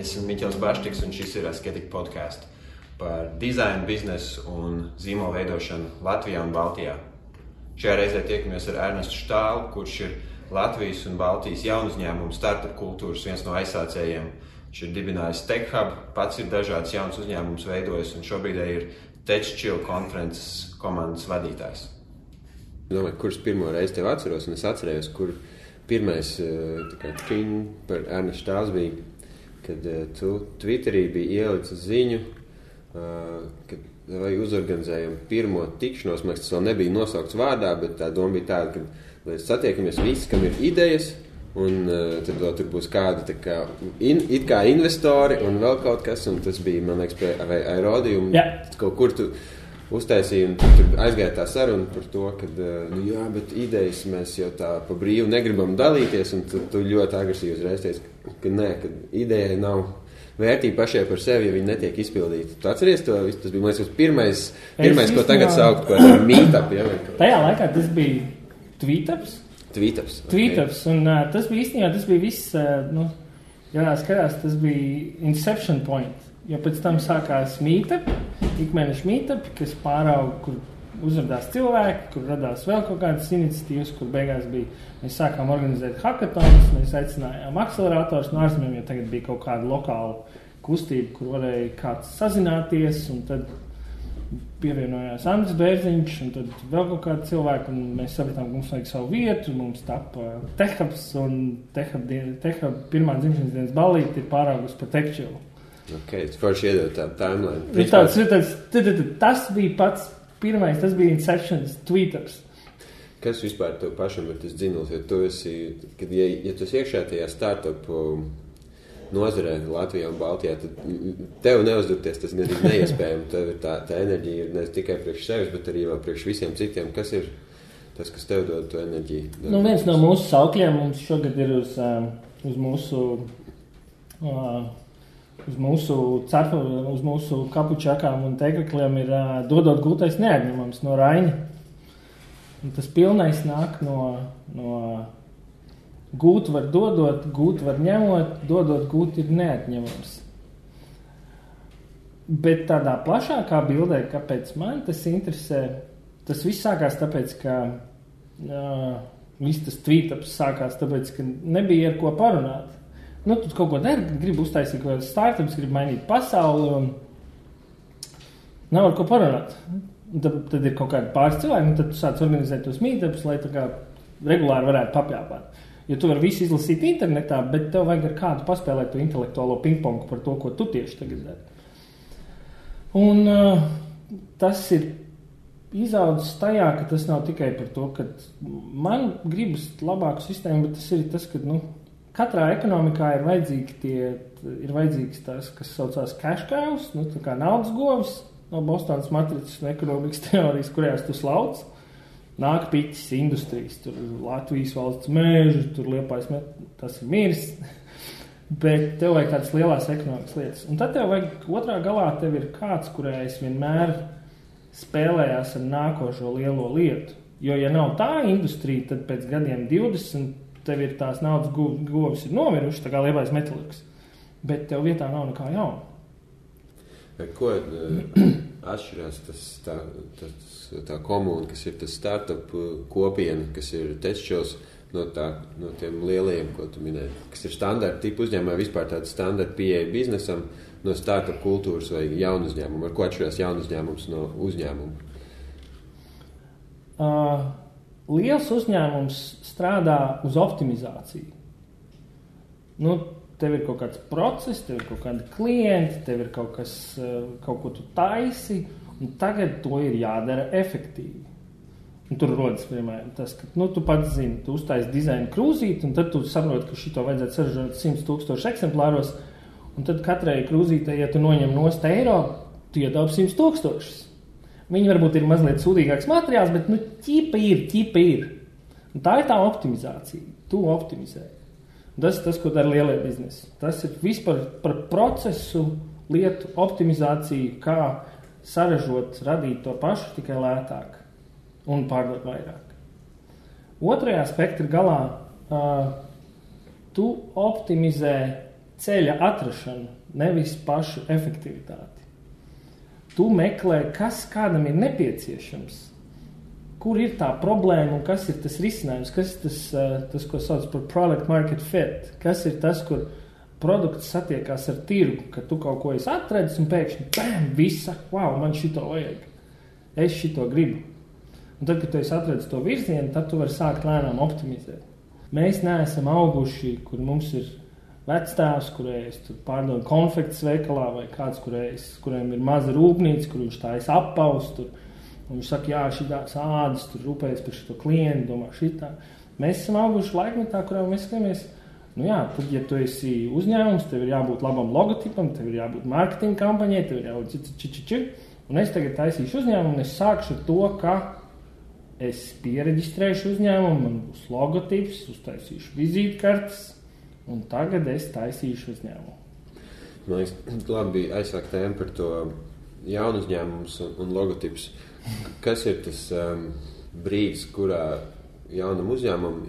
Esmu Miķels Baštiks, un šis ir Asketik podcasts par dizainu, biznesu un zīmolu veidošanu Latvijā un Baltijā. Šajā reizē tiekamies ar Ernestu Štālu, kurš ir Latvijas un Baltijas jaunu uzņēmumu startup kultūras viens no aizsācējiem. Viņš ir dibinājis TechHub, pats ir dažādas jaunas uzņēmumus veidojis un šobrīd ir TechChill konferences komandas vadītājs. Domāju, kurš pirmo reizi tev atceros, un es atcerējos, kur pirmais par Ernestu Štāls bija, kad tu Twitterī biji ielicis ziņu, kad vai uzorganizējam pirmo tikšanos. Man liekas, tas vēl nebija nosaukts vārdā, bet tā doma bija tāda, ka mēs satiekamies visi, kam ir idejas, un tad vēl tur būs kādi tā kā, it kā investori un vēl kaut kas, un tas bija, man liekas, pie Aerodījuma. Kaut kur tu uztaisīja, un tur aizgāja tā saruna par to, ka, jā, bet idejas mēs jau tā pa brīvu negribam dalīties, un tu ļoti agresīvi uzreiz teici, ka nē, ka idejai nav vērtība pašai par sevi, ja viņi netiek izpildīti. Tu atceries to? Tas bija, man liekas, pirmais, ko tagad saukt par meetup. Ja? Tajā laikā tas bija Tweetups. Okay. Tweetups, un tas bija īstenībā, tas bija viss, jānā skatās, tas bija Inception Point. Jo pēc tam sākās meetup, ikmēneša meetup, kas pārauga, kur uzradās cilvēki, kur radās vēl kaut kādas iniciatīvas, kur beigās bija, mēs sākām organizēt hackathons, mēs aicinājām akcelerators no ārzemēm, jo tagad bija kaut kāda lokāla kustība, kur varēja kāds sazināties, un tad pievienojās Andris Bērziņš, un tad vēl kaut kādi cilvēki, un mēs sapratām, ka mums vajag savu vietu, mums tapa TechHubs, un TechHub pirmā dzimšanas dienas ballīte ir pāraugusi par TechChill. Okay, tas forši iedod tādu timeline. Tas bija pats pirmais, tas bija Inceptions, Tweetups. Kas vispār tev pašam ir tas dzinuls? Ja tu esi, ja tu esi iekšā tajā startup nozarē Latvijā un Baltijā, tad tev neuzdurties tas gan ir neiespējami. Tev ir tā enerģija ir ne tikai priekš sevis, bet arī vēl priekš visiem citiem. Kas ir tas, kas tev dod to enerģiju? Viens no mūsu saukļiem mums šogad ir uz mūsu kapučakām un teikakliem ir dodot gūtais neatņemams no Raņa. Un tas pilnais nāk no gūt var dodot, gūt var ņemot, dodot gūt ir neatņemams. Bet tādā plašākā bildē, kāpēc man tas interesē, tas viss sākās tāpēc, ka viss tas tweetups sākās tāpēc, ka nebija ar ko parunāt. Tu kaut ko dari, gribi uztaisīt kaut kādas startups, gribi mainīt pasauli un nav ar ko parunāt. Tad ir kaut kādi pāris cilvēki, un tad tu sāc organizēt tos meetupus, lai tā kā regulāri varētu papļāpāt. Jo tu vari visu izlasīt internetā, bet tev vajag ar kādu paspēlēt to intelektuālo pingpongu par to, ko tu tieši tagad dari. Un tas ir izaudzis tajā, ka tas nav tikai par to, ka man gribas labāku sistēmu, bet tas ir tas, ka, katrā ekonomikā ir vajadzīgs tas, kas saucās cash cows, tā kā naudas govis no Bostonas matricas un ekonomikas teorijas, kurējās tu slauc. Nāk piķis industrijas, tur Latvijas valsts mēži, tur Liepājas, tas ir miris, bet tev vajag tādas lielās ekonomikas lietas. Un tad tev vajag otrā galā, tev ir kāds, kurējais vienmēr spēlējās ar nākošo lielo lietu. Jo, ja nav tā industrija, tad pēc gadiem 20 tev ir tās naudas govis ir nomiruši, tā kā Liepājas metalurgs, bet tev vietā nav nekā jauna. Ko atšķirās tā komūna, kas ir tas startup kopiena, kas ir TechChills no tiem lielajiem, ko tu minēji, kas ir standarta tipu uzņēmumā, vispār tāda standarta pieeja biznesam no startup kultūras vai jaunu uzņēmumu? Ar ko atšķirās jaunu uzņēmums no uzņēmuma? Liels uzņēmums strādā uz optimizāciju. Tev ir kaut kāds process, tev ir kaut kādi klienti, tev ir kaut ko tu taisi, un tagad to ir jādara efektīvi. Un tur rodas, piemēram, tas, ka tu pats zini, tu uztaisi dizaina krūzīti, un tad tu saproti, ka šito vajadzētu saražot 100,000 eksemplāros, un tad katrai krūzītei, ja tu noņem nost eiro, tu iedaupi 100,000. Viņi varbūt ir mazliet sūdīgāks materiāls, bet ķipa ir. Un tā ir tā optimizācija. Tu optimizē. Tas ir tas, ko dara lielie biznesi. Tas ir vispār par procesu, lietu optimizāciju, kā saražot, radīt to pašu tikai lētāk un pārdot vairāk. Otrajā spektra galā tu optimizē ceļa atrašanu, nevis pašu efektivitāti. Tu meklē, kas kādam ir nepieciešams, kur ir tā problēma un kas ir tas risinājums, kas ir tas, ko sauc par product market fit, kas ir tas, kur produkts satiekās ar tirgu, ka tu kaut ko esi atradis un pēkšņi, bam, visa, wow, man šito vajag, es šito gribu. Un tad, kad tu esi atradis to virzienu, tad tu vari sākt lēnām optimizēt. Mēs neesam auguši, kur mums ir vecstāvs, kurējais tur pārdod konfektes veikalā vai kāds, kuriem ir maza rūpnīca, kur viņš tā esi appaus, tur, un viņš saka, jā, šitās ādas, tur rūpējas par šito klientu, domā šitā. Mēs esam auguši laikmetā, kurā mēs skatāmies, nu jā, tad, ja tu esi uzņēmums, tev ir jābūt labam logotipam, tev ir jābūt marketinga kampaņai, tev ir jābūt un es tagad taisīšu uzņēmumu, un es sākšu ar to, ka es piereģistrēšu uzņēmumu, man būs logotips, uztaisīšu vizītkartes, un tagad es taisīšu uzņēmumu. Man liekas, labi bija aizsākt tēmu par to jaunu uzņēmumus un logotips. Kas ir tas brīdis, kurā jaunam uzņēmumam,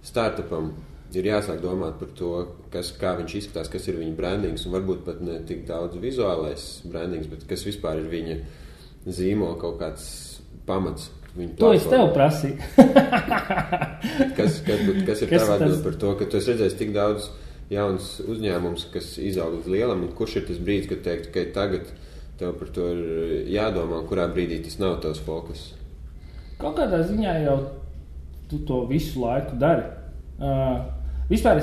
startupam ir jāsāk domāt par to, kā viņš izskatās, kas ir viņa brandings, un varbūt pat ne tik daudz vizuālais brandings, bet kas vispār ir viņa zīmola kaut kāds pamats. To es tev prasīju. kas ir tava atbilde par to, ka tu esi redzējis tik daudz jauns uzņēmums, kas izaug līdz lielam, un kurš ir tas brīdis, kad teikt, ka tagad tev par to ir jādomā, kurā brīdī tas nav tavs fokus? Kaut kādā ziņā jau tu to visu laiku dari. Vispār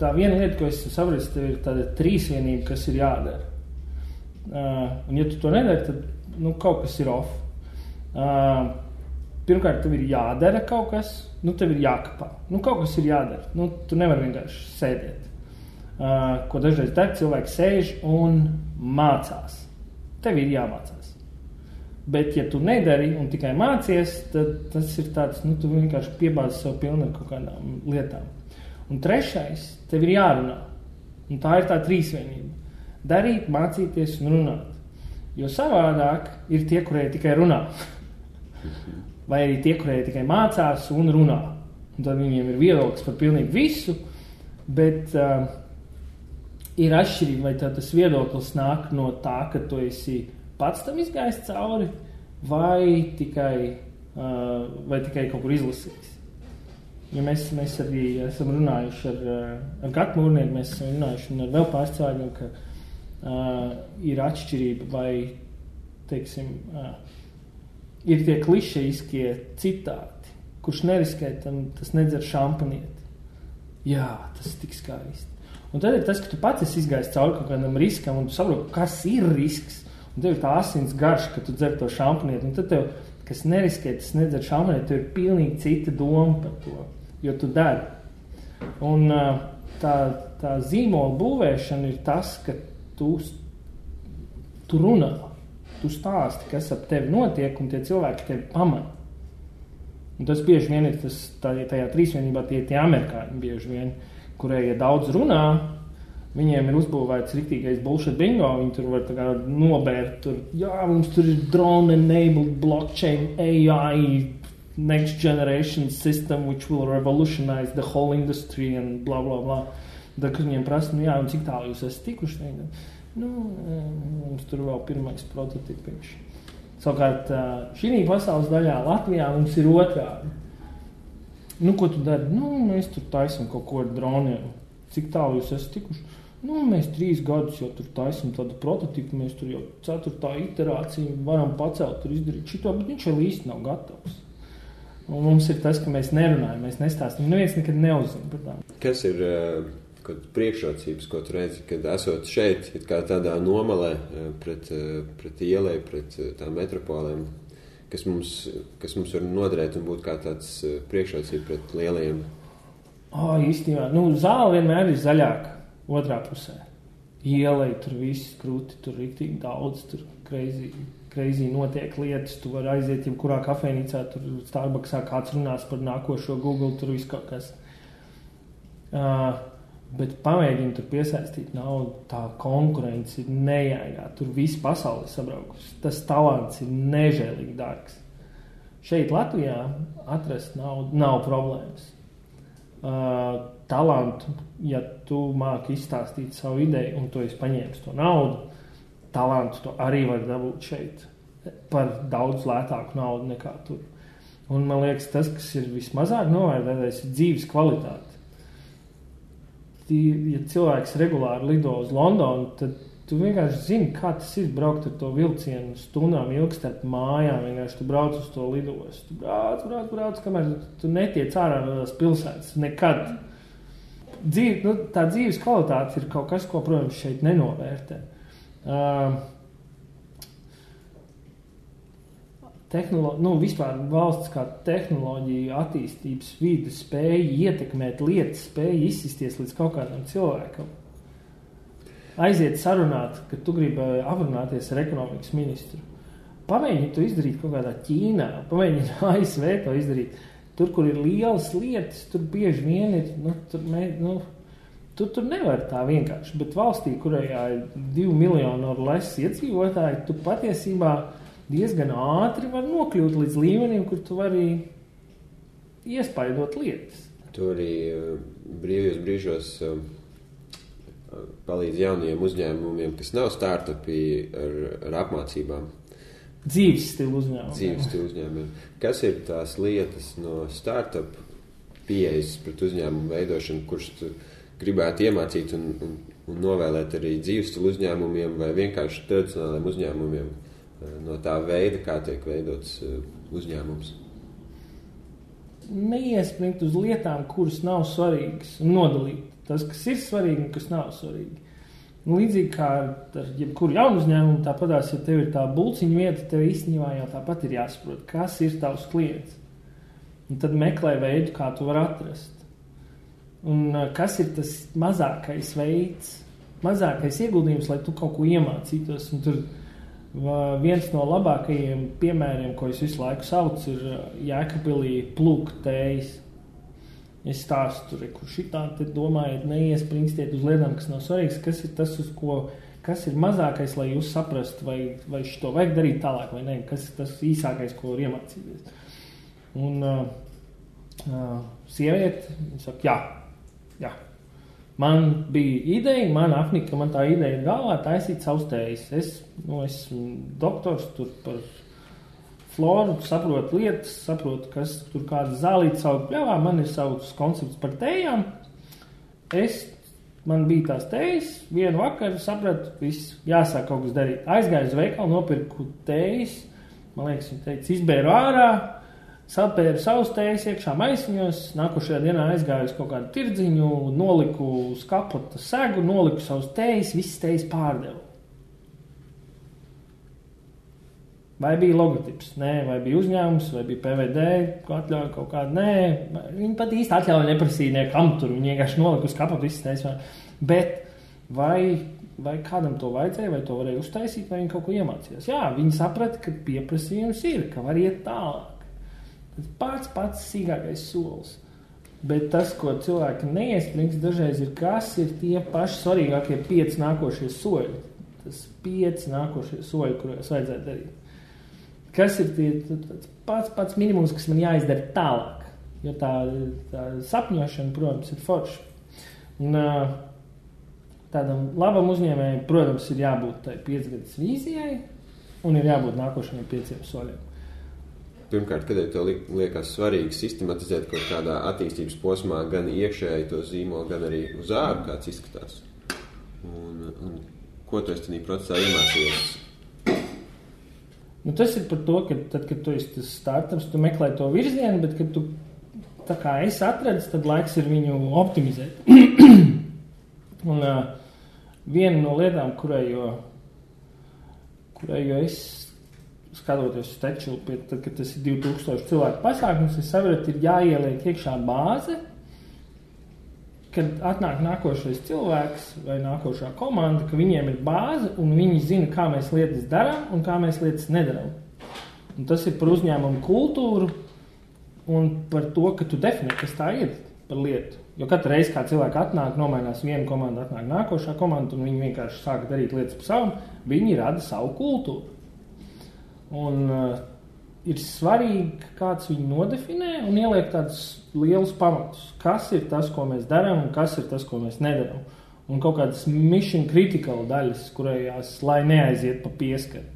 tā viena lieta, ko es saprotu, tev ir tāda trīsvienība, kas ir jādara. Un ja tu to nedari, tad kaut kas ir off. Pirmkārt, tev ir jādara kaut kas, tev ir jākapā. Kaut kas ir jādara. Tu nevari vienkārši sēdēt. Ko dažreiz dara, cilvēki sēž un mācās. Tev ir jāmācās. Bet, ja tu nedari un tikai mācies, tad tas ir tāds, tu vienkārši piebāzi sev pilni ar kaut kādām lietām. Un trešais, tev ir jārunā. Un tā ir tā trīsvienība. Darīt, mācīties un runāt. Jo savādāk ir tie, kurēji tikai runā. Vai arī tie, kurēji tikai mācās un runā. Un tad viņiem ir viedoklis par pilnīgi visu, bet ir atšķirība, vai tas viedoklis nāk no tā, ka tu esi pats tam izgājis cauri, vai tikai kaut kur izlasījis. Ja mēs arī esam runājuši ar Gatu Mūrnieku, mēs esam runājuši un ar vēl pāris cilvēkiem, ka ir atšķirība, vai, teiksim, ir tie klišejiskie citāti, kurš neriskē, tas nedzer šampanieti. Jā, tas tik skaisti. Un tad ir tas, ka tu pats esi izgājis cauri kaut kādam riskam, un tu saproti, kas ir risks. Un tev ir tā asins garš, ka tu dzer to šampanieti. Un tad tev, kas neriskē, tas nedzer šampanieti, tev ir pilnīgi cita doma par to, jo tu dari. Un tā zīmola būvēšana ir tas, ka tu runā. Tu stāsti, kas ap tevi notiek, un tie cilvēki tevi pamana. Un tas bieži vien ir tajā trīsvienībā tie amerikāņi bieži vien, kurai, ja daudz runā, viņiem ir uzbūvēts riktīgais bullshit bingo, viņi tur var tā kā nobērt, jā, mums tur ir drone-enabled blockchain AI next generation system which will revolutionize the whole industry and blah, blah, blah. Tad, kad viņiem prasa, jā, un cik tālu jūs esat tikuši, mums tur vēl pirmais prototipiņš. Savukārt, šī pasaules daļā Latvijā mums ir otrādi. Ko tu dari? Mēs tur taisam kaut ko ar droniem. Cik tālu jūs esat tikuši? Mēs 3 gadus jau tur taisam tādu prototipu, mēs tur jau 4. iterāciju varam pacelt, tur izdarīt šito, bet viņš vēl īsti nav gatavs. Un mums ir tas, ka mēs nerunājam, mēs nestāstam. Neviens nekad neuzzina par tām. Kas ir priekšrocības, ko tu redzi, kad esot šeit, kā tādā nomalē pret ielai, pret tām metropolēm, kas mums var noderēt un būt kā tāds priekšrocība pret lielajiem? Īstenībā, zāle vienmēr ir zaļāka otrā pusē. Ielai tur viss krūti, tur riktīgi daudz, tur crazy notiek lietas, tu vari aiziet jebkurā kafejnīcā, tur Starbucksā kāds runās par nākošo Google, tur viss kaut kas. Bet pamēģini tur piesaistīt naudu, tā konkurence ir nejēgā, tur visi pasauli sabraukusi. Tas talants ir nežēlīgi dārgs. Šeit Latvijā atrast naudu nav problēmas. talantu, ja tu māki izstāstīt savu ideju un tu esi paņēmis to naudu, talantu to arī var dabūt šeit par daudz lētāku naudu nekā tur. Un man liekas, tas, kas ir vismazāk novērtētais, ir dzīves kvalitāte. Ja cilvēks regulāri lido uz Londonu, tad tu vienkārši zini, kā tas ir braukt ar to vilcienu stundām ilgi starp mājām, vienkārši tu brauc uz to lidostu. Tu brauc, kamēr tu netiec ārā no tās pilsētas. Nekad. Tā dzīves kvalitāte ir kaut kas, ko, protams, šeit nenovērtē. Vispār valsts kā tehnoloģija, attīstības vide spēja ietekmēt lietas, spēja izsisties līdz kaut kādam cilvēkam. Aiziet sarunāt, ka tu gribi aprunāties ar ekonomikas ministru. Pamēģini to izdarīt kaut kādā Ķīnā, pamēģini ASV to izdarīt. Tur, kur ir lielas lietas, tur bieži vien ir, tur nevar tā vienkārši, bet valstī, kurajā ir 2 miljonu ar less iedzīvotāji, tu patiesībā diezgan ātri var nokļūt līdz līmenim, kur tu vari iespaidot lietas. Tu arī brīvajos brīžos palīdz jaunajiem uzņēmumiem, kas nav startupi ar apmācībām. Dzīves stilu uzņēmumiem. Kas ir tās lietas no startup pieejas pret uzņēmumu veidošanu, kurš tu gribētu iemācīt un novēlēt arī dzīves stilu uzņēmumiem vai vienkārši tradicionāliem uzņēmumiem? No tā veida, kā tiek veidots uzņēmums. Neiespringt uz lietām, kuras nav svarīgas, un nodalīt tas, kas ir svarīgi un kas nav svarīgi. Līdzīgi kā ar jebkuru jaunu uzņēmumu, tāpatās, ja tev ir tā bulciņa vieta, tev īstenībā jau tāpat ir jāsaprot, kas ir tavs klients. Un tad meklē veidu, kā tu vari atrast. Un kas ir tas mazākais veids, mazākais ieguldījums, lai tu kaut ko iemācītos. Un tur viens no labākajiem piemēriem, ko es visu laiku saucu, ir Jēkabpilī plūktējas. Es stāstu tur, kur šitā te domājiet, neiespringstiet uz lietām, kas nav svarīgas, kas ir tas, kas ir mazākais, lai jūs saprastu, vai šito vajag darīt tālāk vai ne, kas ir tas īsākais, ko var iemācīties. Un sieviete saka, jā. Man bija ideja, man apnika, man tā ideja ir galvā taisīt savus tējas. Es esmu doktors tur par floru, saprotu lietas, saprotu, kas tur kāda zālīta savu pļavā, man ir savs koncepts par tējām. Man bija tās tējas, vienu vakaru sapratu, viss jāsāk kaut kas darīt. Aizgāju uz veikalu, nopirku tējas, man liekas, viņa teica, izbēru ārā, sapēru savus tējas iekšā maisiņos, nākošajā dienā aizgāju uz kaut kādu tirdziņu, noliku uz kapota segu, noliku savus tējas, visas tējas pārdevu. Vai bija logotips? Nē. Vai bija uzņēmums? Vai bija PVD? Atļauja kaut kādu? Nē. Viņi pat īsti atļauja neprasīja niekam tur. Viņi vienkārši noliku uz kapota visas tējas. Bet vai kādam to vajadzēja, vai to varēja uztaisīt, vai viņi kaut ko iemācījās? Jā, viņi saprata, ka pieprasījums ir, ka var iet tālāk. Pats sīkākais solis. Bet tas, ko cilvēki neiesprings dažreiz ir, kas ir tie paši svarīgākie 5 nākošie soļi. Tas 5 nākošie soļi, kuros vajadzētu darīt. Kas ir pats minimums, kas man jāizdara tālāk. Jo tā sapņošana, protams, ir forša. Un tādam labam uzņēmējam, protams, ir jābūt tai 5 gadus vīzijai un ir jābūt nākošajiem 5 soļiem. Pirmkārt, kad tev liekas svarīgi sistematizēt kaut kādā attīstības posmā gan iekšēji to zīmolu, gan arī uz āru, kāds izskatās. Un ko tu esi tādā procesā iemācījies? Tas ir par to, ka tad, kad tu esi tas startups, tu meklē to virzienu, bet, kad tu tā kā esi atradis, tad laiks ir viņu optimizēt. Un viena no lietām, kurai es skatoties uz Tekčilu, tad, kad tas ir 2000 cilvēku pasākums, es sapratu, ir jāieliek iekšā bāze, kad atnāk nākošais cilvēks vai nākošā komanda, ka viņiem ir bāze un viņi zina, kā mēs lietas darām un kā mēs lietas nedarām. Un tas ir par uzņēmumu kultūru un par to, ka tu definē, kas tā ir par lietu. Jo katru reizi, kā cilvēki atnāk, nomainās viena komanda, atnāk nākošā komanda un viņi vienkārši sāka darīt lietas pa savam, viņi rada savu kultūru. Un ir svarīgi, ka kāds viņu nodefinē un ieliek tādus lielus pamatus. Kas ir tas, ko mēs darām, un kas ir tas, ko mēs nedarām. Un kaut kādas mission critical daļas, kurējās, lai neaiziet pa pieskaru.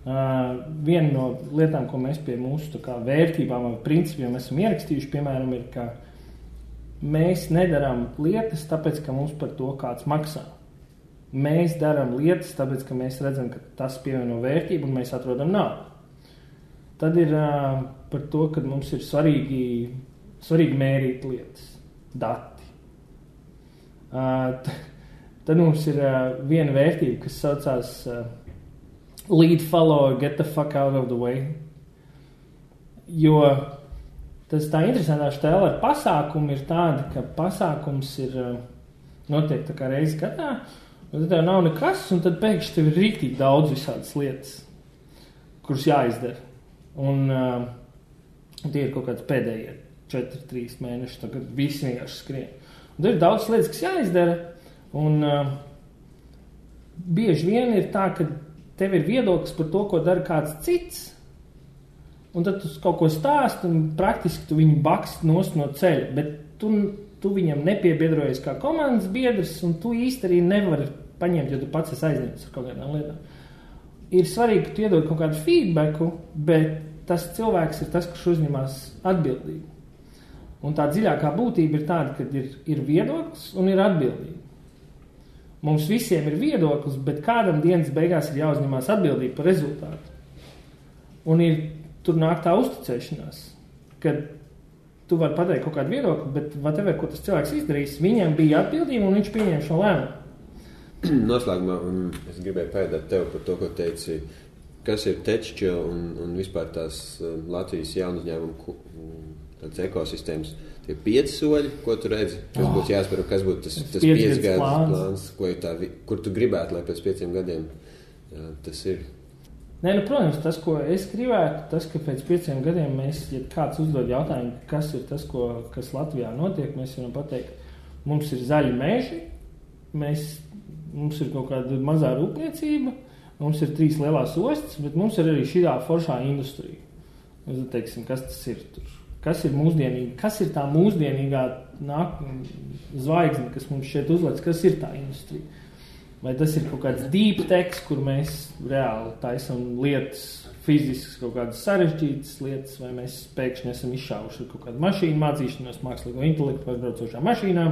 Viena no lietām, ko mēs pie mūsu tā kā vērtībām vai principiem esam ierakstījuši, piemēram, ir, ka mēs nedarām lietas, tāpēc, ka mums par to kāds maksā. Mēs darām lietas, tāpēc, ka mēs redzam, ka tas pievieno vērtību un mēs atrodam naudu. Tad ir par to, ka mums ir svarīgi mērīt lietas, dati. Tad mums ir viena vērtība, kas saucās lead, follow, get the fuck out of the way. Jo tas tā interesantā štēla ar pasākumu ir tāda, ka pasākums ir notiek tā kā reizi gadā, un tad tev nav nekas, un tad pēkšņi tev ir rīktīgi daudz visādas lietas, kuras jāizdara. Un tie ir kaut kāds pēdējie 4-3 mēneši, tagad visi vienkārši skrien. Un tad ir daudz lietas, kas jāizdara, un bieži vien ir tā, ka tev ir viedoklis par to, ko dara kāds cits, un tad tu kaut ko stāst, un praktiski tu viņu bakst nost no ceļa, bet tu viņam nepiebiedrojies kā komandas biedrs, un tu īsti arī nevari paņemt, jo tu pats esi aizņemts ar kaut kādām lietām. Ir svarīgi, ka tu iedod kaut kādu feedbacku, bet tas cilvēks ir tas, kurš uzņemās atbildību. Un tā dziļākā būtība ir tāda, ka ir viedoklis un ir atbildība. Mums visiem ir viedoklis, bet kādam dienas beigās ir jāuzņemās atbildība par rezultātu. Un tur nāk tā uzticēšanās, kad tu vari pateikt kaut kādu viedokli, bet whatever, ko tas cilvēks izdarīs, viņam bija atbildība un viņš pieņem šo lēmumu. Noslēgumā es gribēju pēdēt tev par to, ko teici, kas ir TechChill un vispār tās Latvijas jaunu uzņēmumu tāds ekosistēmas. Tie 5 soļi, ko tu redzi, kas būtu jāspēr, kas būtu tas 5 gadu plāns, kur tu gribētu, lai pēc 5 gadiem tas ir? Nē, protams, tas, ko es gribētu, tas, ka pēc 5 gadiem mēs, ja kāds uzdod jautājumu, kas ir tas, kas Latvijā notiek, mēs varam pateikt, mums ir zaļi meži, mums ir kaut kāda mazā rūpniecība, mums ir 3 lielās ostas, bet mums ir arī šī foršā industrija. Mēs teiksim, kas tas ir tur? Kas ir mūsdienīgi? Kas ir tā mūsdienīgā zvaigzne, kas mums šeit uzlec? Kas ir tā industrija? Vai tas ir kaut kāds deep tech, kur mēs reāli taisam lietas, fiziskas kaut kādas sarežģītas lietas, vai mēs pēkšņi esam izšāvuši kaut kādu mašīnu mācīšanos, mākslīgo intelektu vai braucošām mašīnām?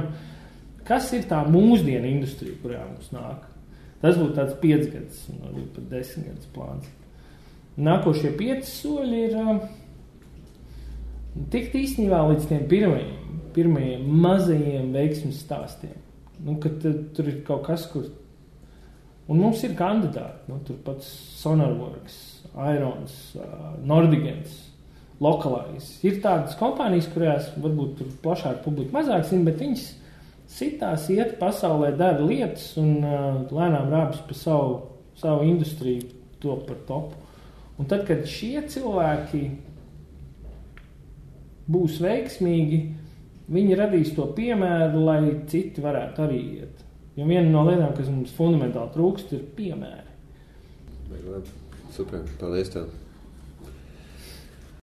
Kas ir tā mūsdienu industrija, kurā mums nāk? Tas būtu tāds 5 gadus, varbūt pat 10 gadus plāns. Nākošie 5 soļi ir tikt īstenībā līdz tiem pirmajiem mazajiem veiksmes stāstiem. Kad tur ir kaut kas, kur... Un mums ir kandidāti, tur pats Sonarworks, Irons, Nordigans, Localize. Ir tādas kompānijas, kurās varbūt tur plašāk publika mazāk zina, bet viņas sitās iet pasaulē, dara lietas un lēnām rāpjas pa savu industriju top par topu. Un tad, kad šie cilvēki būs veiksmīgi, viņi radīs to piemēru, lai citi varētu arī iet. Jo viena no lietām, kas mums fundamentāli trūkst, ir piemēri. Super, paldies tev.